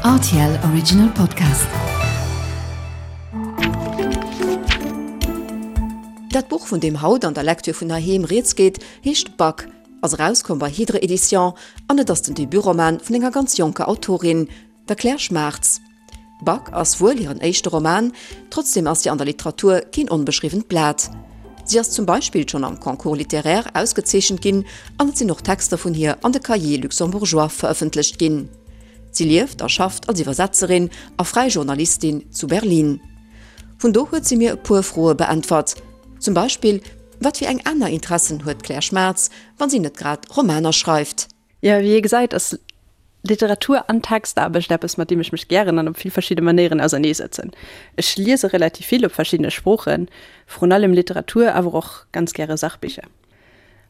Rtl Original Podcast. Dat Buch, vun deem haut an der Lektür vun heiheem rieds geet, heescht Bug, ass erauskomm bei Hydre Edition an et ass den Debutroman vun enger ganz jonker Autorin, der Claire Schmaartz. Bug ass wuel hiren éischte Roman, trotzdeem ass si an der Literatur keen onbeschriwwent Blat. Si ass zum Beispill schonn am Concours littéraire ausgezeechent ginn an et sinn och Texter vun hir an de Cahiers luxembourgeois verëffentlecht ginn. Si lieft a schafft als Iwwersetzerin a fräi Journalistin zu Berlin. Vun do huet si mir e puer Froe beäntwert, zum Beispill, Wat fir eng aner Interessen huet d'Claire Schmaartz, wann si net grad Romaner schreift? Jo, wéi ee gesäit, ass Literatur an Textaarbecht eppes, mat deem ech mech gären an op vill verschidde Manéieren auserneesetzen. Ech liese relativ vill op verschiddene Sproochen, vrun allem Literatur, awer och ganz gäre Sachbicher.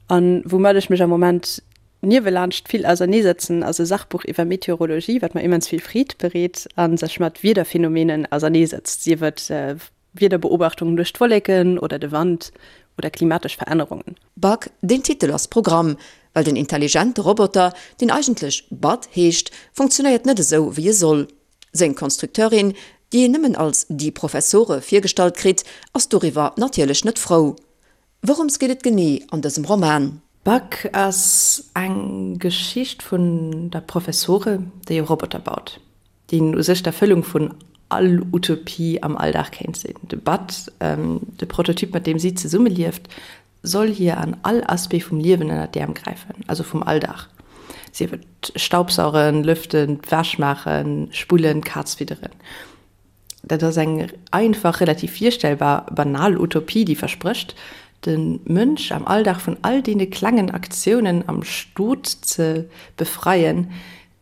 An woumat ech mech am Moment niewelaanscht vill auserneesetzen, ass e Sachbuch iwwer Meteorologie, wat mer immens vill Freed bereet a sech mat Wiederphänomenen auserneesetzt, sief et Wiederbeobachtungen duerch d'Wolleken oder de Wand oder klimatesch Verännerungen. Bug, deen Titel ass Programm, well den intelligente Roboter, deen eigentlech Bud heescht, funktionéiert net esou wéi e soll. Seng Konstrukteurin, déi een nëmmen als die Professore virgestallt kritt, ass doriwwer natierlech net frou. Wourëms geet et genee an dësem Roman? Bug ass eng Geschicht vun der Professore, déi e Roboter baut. deen u sech d'Erfëllung vun all Utopie am Alldag kéint sinn. De Bud, de Prototyp mat deem si zesummelieft, soll hir an all Aspect vum Liewen ënner d'Äerm gräifen, also vum Alldag, sief et Staubsaugen, Lëften, d'Wäsch maachen, Spullen, d'Kaz fidderen. Dat ass eng einfach, relativ virstellbar, banal Utopie, déi versprécht, de Mënsch am Alldag vun all deene klengen Aktiounen am Stot ze befreien,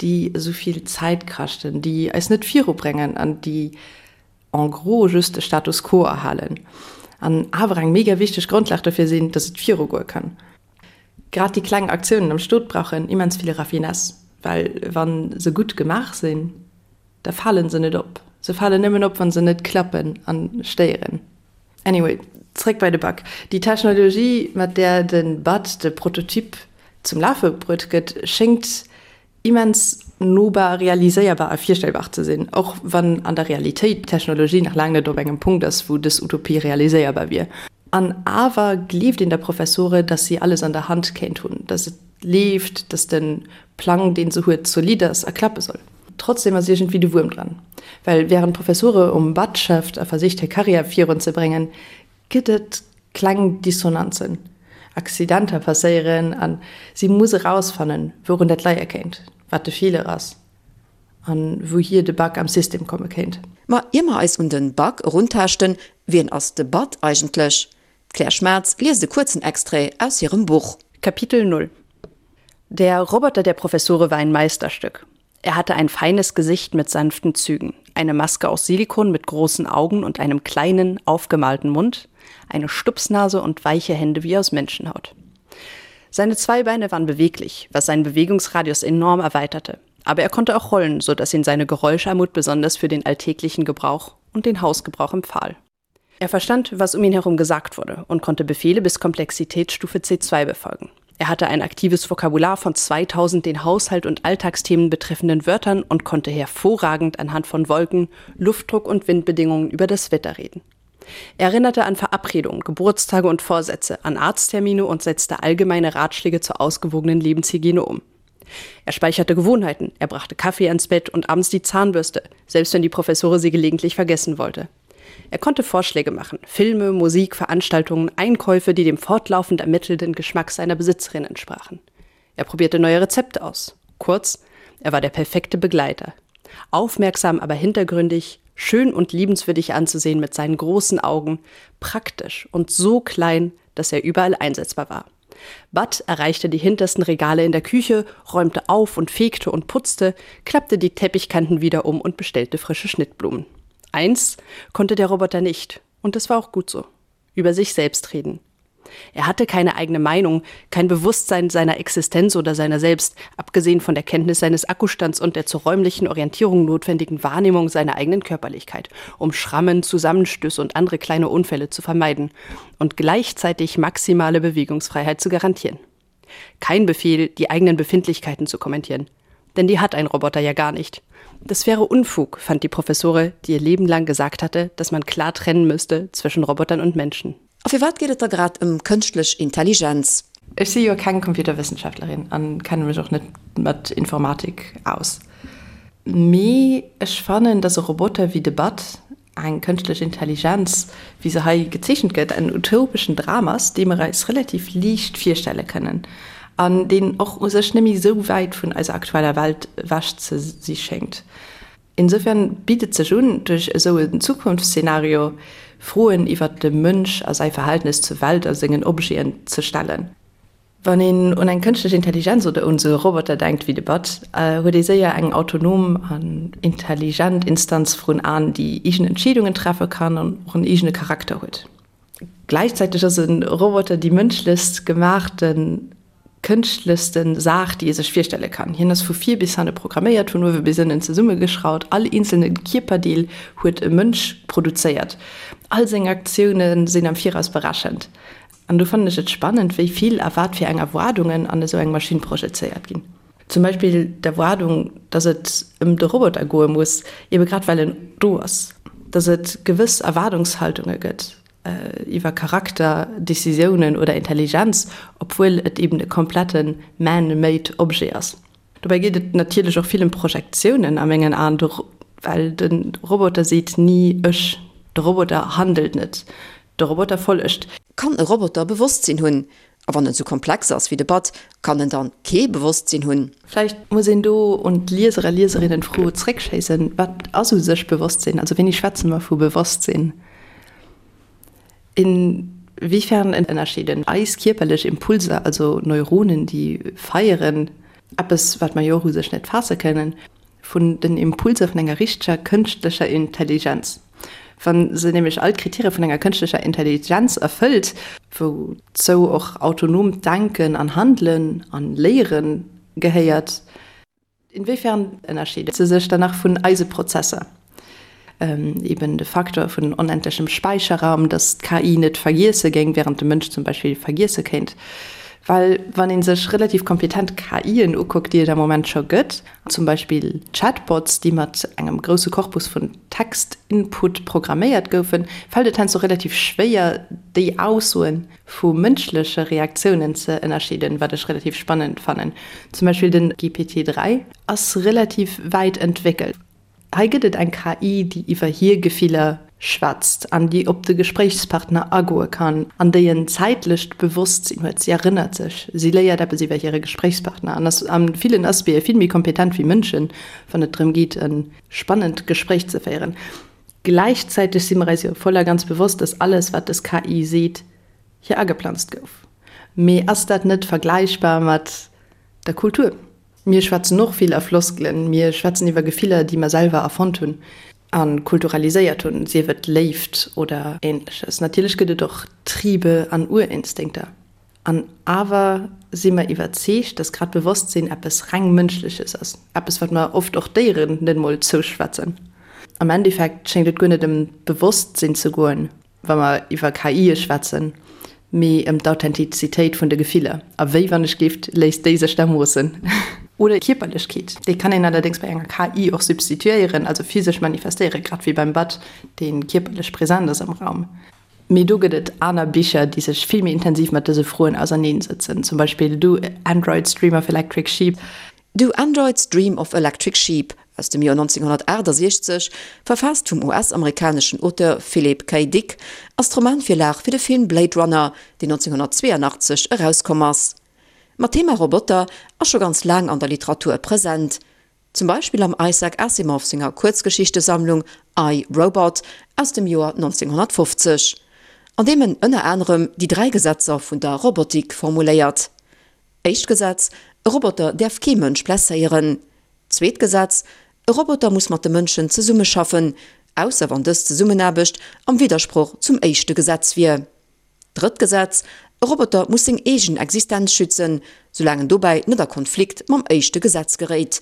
déi esou vill Zäit kaschten, déi eis net virubréngen an déi en gros just de Status quo erhalen an awer eng mega wichteg Grondlag dofir sinn, dass et virugoe kann. Grad déi kleng Aktiounen am Stot brauchen immens vill Raffinesse, well wa se gutt gemaach sinn, da falen se net op. Se falen nëmmen op, wa se net klappen a stéieren. Anyway, zréck bei de Bug. Déi Technologie, mat där de Bud de Prototyp zum Lafe bruet gëtt, schéngt immens nobar, realiséierbar a virstellbar ze sinn, och wann an der Realitéit d'Technologie nach laang net op engem Punkt ass, wou dës Utopie realiséierbar wier. An awer gleeft een der Professore, dass si alles an der Hand kéint hunn, dass et leeft, dass de Plang, dee se huet, zolidd ass a klappe soll. Trotzdem ass iergendwéi de Wuerm dran, well wärend d'Professore um Bud schafft a versicht hir Karriär virun ze bréngen, gëtt et kleng Dissonanzen. Accidenter passéieren a si muss erausfannen, wourun dat leie kéint, wat de Feeler ass a wouhier de Bug am System komme kéint. Ma ier mer eis un de Bug eruntaaschten, wien ass de Bud eigentlech? D'Claire Schmaatz liest e kuerzen Extrait aus hirem Buch. Kapitel 0 Der Roboter der Professore war ein Meisterstück. Er hatte ein feines Gesicht mit sanften Zügen, eine Maske aus Silikon mit großen Augen und einem kleinen, aufgemalten Mund, eine Stupsnase und weiche Hände wie aus Menschenhaut. Seine zwei Beine waren beweglich, was seinen Bewegungsradius enorm erweiterte. Aber er konnte auch rollen, so dass ihn seine Geräuscharmut besonders für den alltäglichen Gebrauch und den Hausgebrauch empfahl. Er verstand, was um ihn herum gesagt wurde und konnte Befehle bis Komplexitätsstufe C2 befolgen. Er hatte ein aktives Vokabular von 2000 den Haushalt und Alltagsthemen betreffenden Wörtern und konnte hervorragend anhand von Wolken, Luftdruck und Windbedingungen über das Wetter reden. Er erinnerte an Verabredungen, Geburtstage und Vorsätze, an Arzttermine und setzte allgemeine Ratschläge zur ausgewogenen Lebenshygiene um. Er speicherte Gewohnheiten, er brachte Kaffee ans Bett und abends die Zahnbürste, selbst wenn die Professore sie gelegentlich vergessen wollte. Er konnte Vorschläge machen, Filme, Musik, Veranstaltungen, Einkäufe, die dem fortlaufend ermittelnden Geschmack seiner Besitzerin entsprachen. Er probierte neue Rezepte aus. Kurz, er war der perfekte Begleiter. Aufmerksam, aber hintergründig, schön und liebenswürdig anzusehen mit seinen großen Augen, praktisch und so klein, dass er überall einsetzbar war. Bud erreichte die hintersten Regale in der Küche, räumte auf und fegte und putzte, klappte die Teppichkanten wieder um und bestellte frische Schnittblumen. Eins konnte der Roboter nicht, und das war auch gut so: über sich selbst reden. Er hatte keine eigene Meinung, kein Bewusstsein seiner Existenz oder seiner selbst, abgesehen von der Kenntnis seines Akkustands und der zur räumlichen Orientierung notwendigen Wahrnehmung seiner eigenen Körperlichkeit, um Schrammen, Zusammenstöße und andere kleine Unfälle zu vermeiden und gleichzeitig maximale Bewegungsfreiheit zu garantieren. Kein Befehl, die eigenen Befindlichkeiten zu kommentieren. Denn die hat ein Roboter ja gar nicht. Das wäre Unfug, fand die Professore, die ihr Leben lang gesagt hatte, dass man klar trennen müsste zwischen Robotern und Menschen. A firwat geet et da grad ëm kënschtlech Intelligenz? Ech si jo keng Computerwëssenschaftlerin an kenne mech och net mat Informatik aus. Mee ech fannen, dass e Roboter wéi de Bud, eng kënschtlech Intelligenz, wéi se hei gezeechent gëtt, en utopeschen Dram ass, dee mer eis relativ liicht virstelle kënnen an deen och u sech net méi esou wäit vun eiser aktueller Welt ewech ze si schéngt. Insofern bitt et sech un, duerch esou en Zukunftsszenario Froen iwwert de Mënsch a säi Verhältnes zur Welt a sengen Objeten ze stellen. Wann een un eng kënschtlech Intelligenz oder un esou e Roboter denkt wéi de Bud, huet ee séier eng autonom an intelligent Instanz vrun Aen, déi eegen Entscheedungen treffe kann an och en eegene Charakter huet. Gläichzäiteg ass e Roboter déi mënschlechst gemaachte kënschtlechste Saach, déi ee sech virstelle kann. Hien ass vu vir bis hanne programméiert, vun uewe bis ënnen zesummegeschraut. All eenzelne Kierperdeel huet e Mënsch produzéiert. All seng Aktioune sinn am Viraus berechent. An do fannen ech et spannend, wéi vill a wat fir eng Erwaardungen an esou eng Maschinn projezéiert ginn. Zum Beispill d'Erwaardung, dass et ëm de Roboter goe muss, ebe grad well en do ass. Dass et gewëss Erwaardungshaltunge gëtt iwwer Charakter, Decisiounen oder Intelligenz, obwuel et eben e komplette man-made Objet ass. Dobäi geet et natierlech och vill ëm Projektiounen a mengen Aen, well de Roboter seet ni ech, de Roboter handelt net, de Roboter follegt. Kann e Roboter Bewosstsinn hunn? A wann en sou komplex ass wéi de Bud, kann en dann kee Bewosstsinn hunn? Vläicht muss een do un d'Lieser a Lieserinnen d'Fro zréckschéissen, Wat ass u sech Bewosstsinn? Also wéini schwätze mer vu Bewosstsinn? Inwiefern ënnerscheeden eis kierperlech Impulser, also Neuronen, déi feieren, eppes wat mer jo och u sech net faasse kënnen, vun den Impulser vun enger richteger kënschtlecher Intelligenz. Wa se nämlech all d'Kritäre vun enger kënschtlecher Intelligenz erfëllt, wouzou och autonoomt Denken an Handelen an Léiere gehéiert, inwiefern ënnerscheet se sech dann nach vun eise Prozesser? Eben de Facteur vun onendlechem Späicherraum, dass d'KI net vergiesse géing, während de Mënsch zum Beispill vergiesse kéint. Well wann ee sech relativ kompetent KIen ukuckt, déi et am Moment scho gëtt, zum Beispill Chatbots, déi mat engem grousse Korpus vun Text-Input programméiert goufen, fält et heiansdo relativ schwéier, déi Aussoe vu mënschleche Reaktiounen ze ënnerscheeden, wat ech relativ spannend fannen. Zum Beispill den GPT 3 ass relativ wäit entwéckelt. Hei gëtt et eng KI, déi iwwer hir Gefiller schwätzt an déi op de Gespréichspartner agoe kann an déi en zäitlecht Bewosstsinn huet. Si erënnert sech, si léiert eppes iwwer hire Gespréichspartner an ass a villen Aspecte vill méi kompetent wéi Mënschen, wann et drëm geet, e spannend Gespréich ze féieren. Gläichzäiteg si mer eis jo voll a ganz bewosst, dass alles, wat dës KI seet, hir ageplanzt gouf. Mee ass dat net vergläichbar mat der Kultur? Mir schwätzen och vill a Floskelen, mir schwätzen iwwer Gefiller, déi mer selwer erfonnt hunn a kulturaliséiert hunn, sief et Léift oder Ähnleches. Natierlech gëtt et och Triebe an Urinstinkter. An awer si mer iwwerzeegt, dass grad Bewosstsinn eppes reng Mënschleches ass, eppes, wat mer oft och Déieren net emol zouschwätzen. Am Endeffekt schéngt et guer net ëm d'Bewosstsinn ze goen, wa mer iwwer KIe schwätzen, mee ëm d'Authentizitéit vun de Gefiller. A wéi, wann ech gift, léisst déi sech da moossen? Oder Kierperlechkeet, déi kann een allerdéngs bei enger KI och substituéieren, also physesch manifestéieren, grad wéi beim Bud, dee kierperlech present ass am Raum. Mee do gëtt et aner Bicher, déi sech vill méi intensiv mat dëse Froen auserneensëtzen, zum Beispill Do Androids Dream of Electric Sheep? Do Androids Dream of Electric Sheep aus dem Joer 1968, verfaasst vum US-amerikaneschen Auteur Philip K. Dick, ass d'Romanvirlag fir de Film Blade Runner, deen 1982 erauskomm ass. Ma d'Thema Roboter ass scho ganz laang an der Literatur present. Zum Beispill am Isaac Asimov senger Kuerzgeschichtesammlung I, Robot aus dem Joer 1950, an deem en ënner anerem déi 3 Gesetzer vun der Robotik formuléiert. Éischt Gesetz, E Roboter däerf kee Mënsch blesséieren. Zweet Gesetz, E Roboter muss mat de Mënschen zesummeschaffen, ausser wann dës Zesummenaarbecht am Widdersproch zum éischte Gesetz wier. Drëtt Gesetz, E Roboter muss seng eegen Existenz schützen, soulaang en dobäi net a Konflikt mam éischte Gesetz geréit.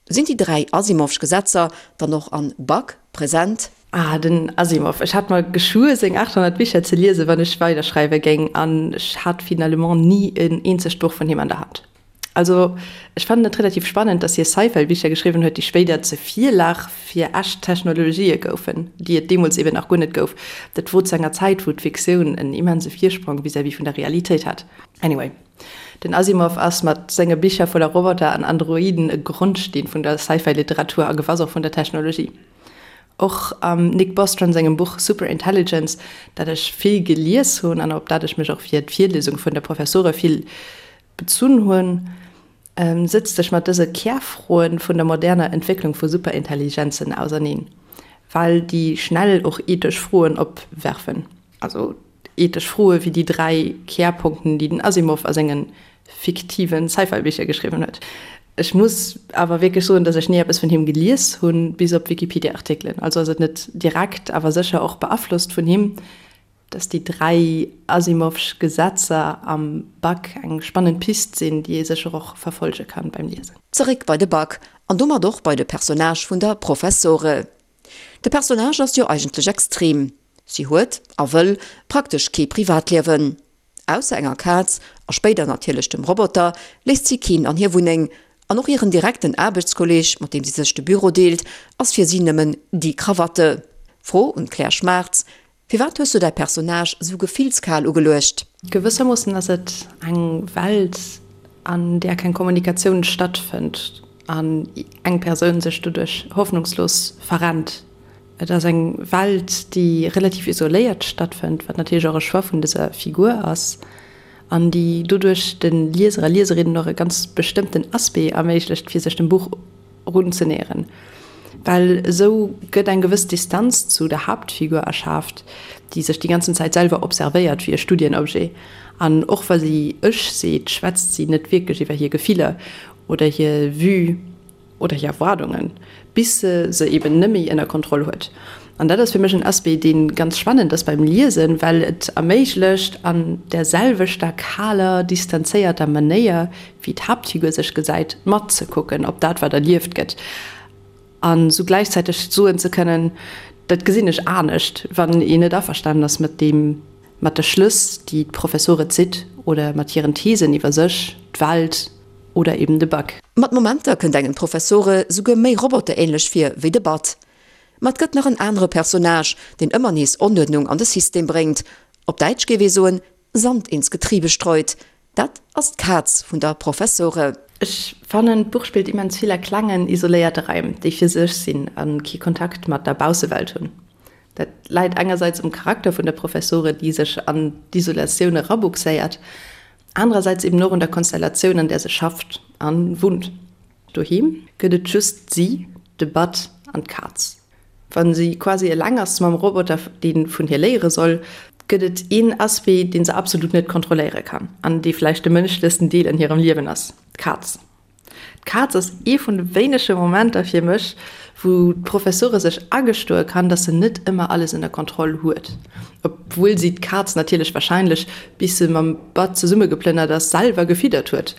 Sinn déi 3 Asimovsch Gesetzer dann och an Bug present? Ah, den Asimov. Ech hat mer geschwuer, seng 800 Bicher ze liesen, wann ech weiderschreiwe géing, an ech hat finalement ni en eenzegt Buch vun him an der Hand. Also ech fannen et relativ spannend, dass hie Sci-Fi-Bicher geschriwwen huet, déi spéider zur Virlag fir echt Technologië goufen, déi et deemools eben nach guer net gouf. Dat wor zu enger Zäit, wou d'Fiktioun en immense Virsprong vis-à-vis vun der Realitéit hat. Anyway, den Asimov ass mat senge Bicher voller Roboter an Androiden e Grondsteen vun der Sci-Fi-Literatur a gewass och vun der Technologie. Och am Nick Bostrom sengem Buch Superintelligence, dat ech vill gelies hunn an op dat ech mech och fir d'Virliesung vun de Professore vill bezunn hunn, sëtzt sech mat dëse Kärfroen vun der moderner Entwécklung vu Superintelligenzen auserneen, well déi schnell och ethesch Froen opwerfen. Also ethesch Froe wéi déi 3 Kärpunkten, déi den Asimov a senge fiktive Sci-Fi-Bicher geschriwwen huet. Ech muss awer wierklech soen, datt ech ni eppes vun him gelies hunn, bis op Wikipedia-Artikelen. Also ass et net direkt, awer sécher och beaflosst vun him, datt déi 3 Asimovsch Gesetzer am Bug eng spannend Pist sinn, déi ee sécher och verfollege kann beim Liesen. Zeréck bei de Bug, an domat och bei de Personnage vun der Professore. De Personnage ass jo eigentlech extrem. Si huet, a wëll, praktesch kee Privatliewen. Ausser enger Kaz, a spéider natierlech dem Roboter, léisst si keen an hir Wunneng. An och hiren direkten Aarbechtskolleeg, mat deem si sech de Büro deelt, ass fir si nëmmen die Krawatte. Fro un d'Claire Schmaartz, Firwat hues du däi Personnage sou gefillskal ugeluecht? Gewëssermoossen ass et eng Welt, an där keng Kommunikatioun stattfënnt an eng Persoun sech doduerch hoffnungslos verrennt. Et ass eng Welt, déi relativ isoléiert stattfënnt, wat natierlech och e Choix vun dëser Figur ass, an déi doduerch de Lieser a Lieserinnen och e ganz bestëmmten Aspect erméiglecht, fir sech dem Buch erunzenäheren. Well esou gëtt eng gewëss Distanz zu der Haaptfigur erschaaft, déi sech déi ganzen Zäit selwer observéiert wéi e Studienobjet. An och wa si ech seet, schwätzt si net wierklech iwwer hir Gefiller oder hir Vue oder hir Erwaardungen, bis se se eben nëmméi ënner Kontroll huet. An dat ass fir mech en Aspect, dee ganz spannend ass beim Liesen, well et erméiglecht, an där selwechter kaler, distanzéierter Manéier, wéi d'Haaptfigur sech gesäit, matzekucken op dat, wat erlieft gëtt, an esou gläichzäiteg soen ze kënnen, dat gesinn ech anescht, wann een net averstanen ass mat deem, mat de Schlëss, déi d'Professore zitt oder mat hiren Thesen iwwer sech, d'Welt oder eben de Bug. Mat Momenter kënnt engem d'Professore souguer méi roboterähnlech vir wéi de Bud. Ma et gëtt nach en anere Personnage, deen ëmmer nees Onuerdnung an de System bréngt, op Däitsch géif ee soen, Sand ins Getriebe streut. Dat ass d'Kaz vun der Professore. Ech fannen, d'Buch spillt immens vill a klengen, isoléierte Raim, déi fir sech sinn a kee Kontakt mat der Baussewelt hunn. Dat läit engersäits um Charakter vun der Professore, déi sech an d'Isolatioun erabuxéiert, anerersäits eben och un der Konstellatioun, an där se schafft a wunnt. Doheem gëtt et just si, de Bud an d'Kaz. Wa si quasi eleng ass mam Roboter, dee vun hir léiere soll, gëtt et een Aspect, dee se absolut net kontrolléiere kann an dee vläicht de mënschlechsten Deel an hirem Liewen ass, d'Kaz. D'Kaz ass ee vun de wéinege Momenter fir mech, wou d'Professore sech agestoe kann, dass se net ëmmer alles ënner Kontroll huet, obwuel si d'Kaz natierlech warscheinlech, bis se mam Bud zesummegeplënnert ass, selwer gefiddert huet.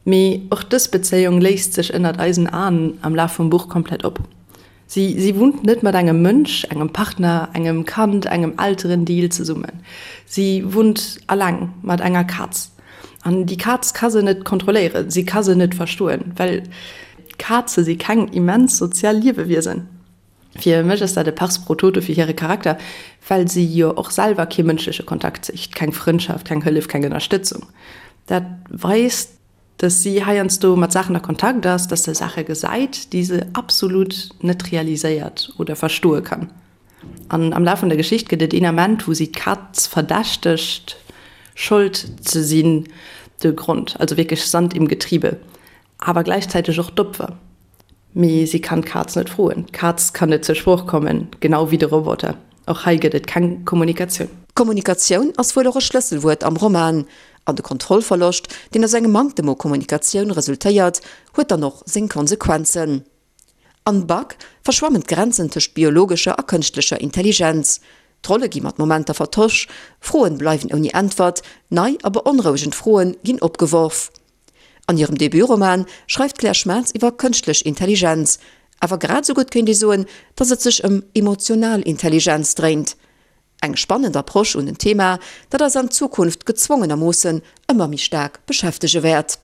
Mee och dës Bezéiung léist sech ënnert eisen Aen am Laf vum Buch komplett op. Si si wunnt net mat engem Mënsch, engem Partner, engem Kand, engem Elterendeel zesummen. Si wunnt alleng mat enger Kaz. An déi Kaz ka se net kontrolléieren, si ka se net verstoen, well Kaze si keng immens sozial Liewewiesen. Fir mech ass dat e Pars pro toto fir hire Charakter, well si jo och selwer kee mënschleche Kontakt sicht, keng Frëndschaft, keng Hëllef, keng Ënnerstëtzung. Dat weist, dass si heiansdo mat Saachen a Kontakt ass, dass se Saache gesäit, déi se absolut net realiséiert oder verstoe kann. An am Laf vun der Geschicht gëtt et een Ament, wou si d'Kaz verdächtegt, Schold ze sinn, de Grond, also wierklech Sand im Getriebe, awer gläichzäiteg och d'Opfer. Mee si kann d'Kaz net froen. D'Kaz kann net zur Sprooch kommen, genau wéi de Roboter. Och hei gëtt et keng Kommunikatioun. Kommunikatioun ass wuel och e Schlësselwuert am Roman. An de Kontrollverloscht, deen aus engem Manktem u Kommunikatioun resultéiert, huet dann och seng Konsequenzen. An Bug verschwammen d'Grenzen tëscht biologescher a kënschtlecher Intelligenz. D'Rolle gi mat Momenter vertosch, Froen bleiwen ouni Äntwert, nei a beonrouegend Froen ginn opgeworf. An hirem Debutroman schreift d'Claire Schmaatz iwwer kënschtlech Intelligenz. Awer grad esou gutt kéint ee soen, datt et sech ëm emotional Intelligenz dréint. Eng spannend Approche un en Thema, dat eis an Zukunft gezwongenermoossen ëmmer méi staark beschäftege wäert.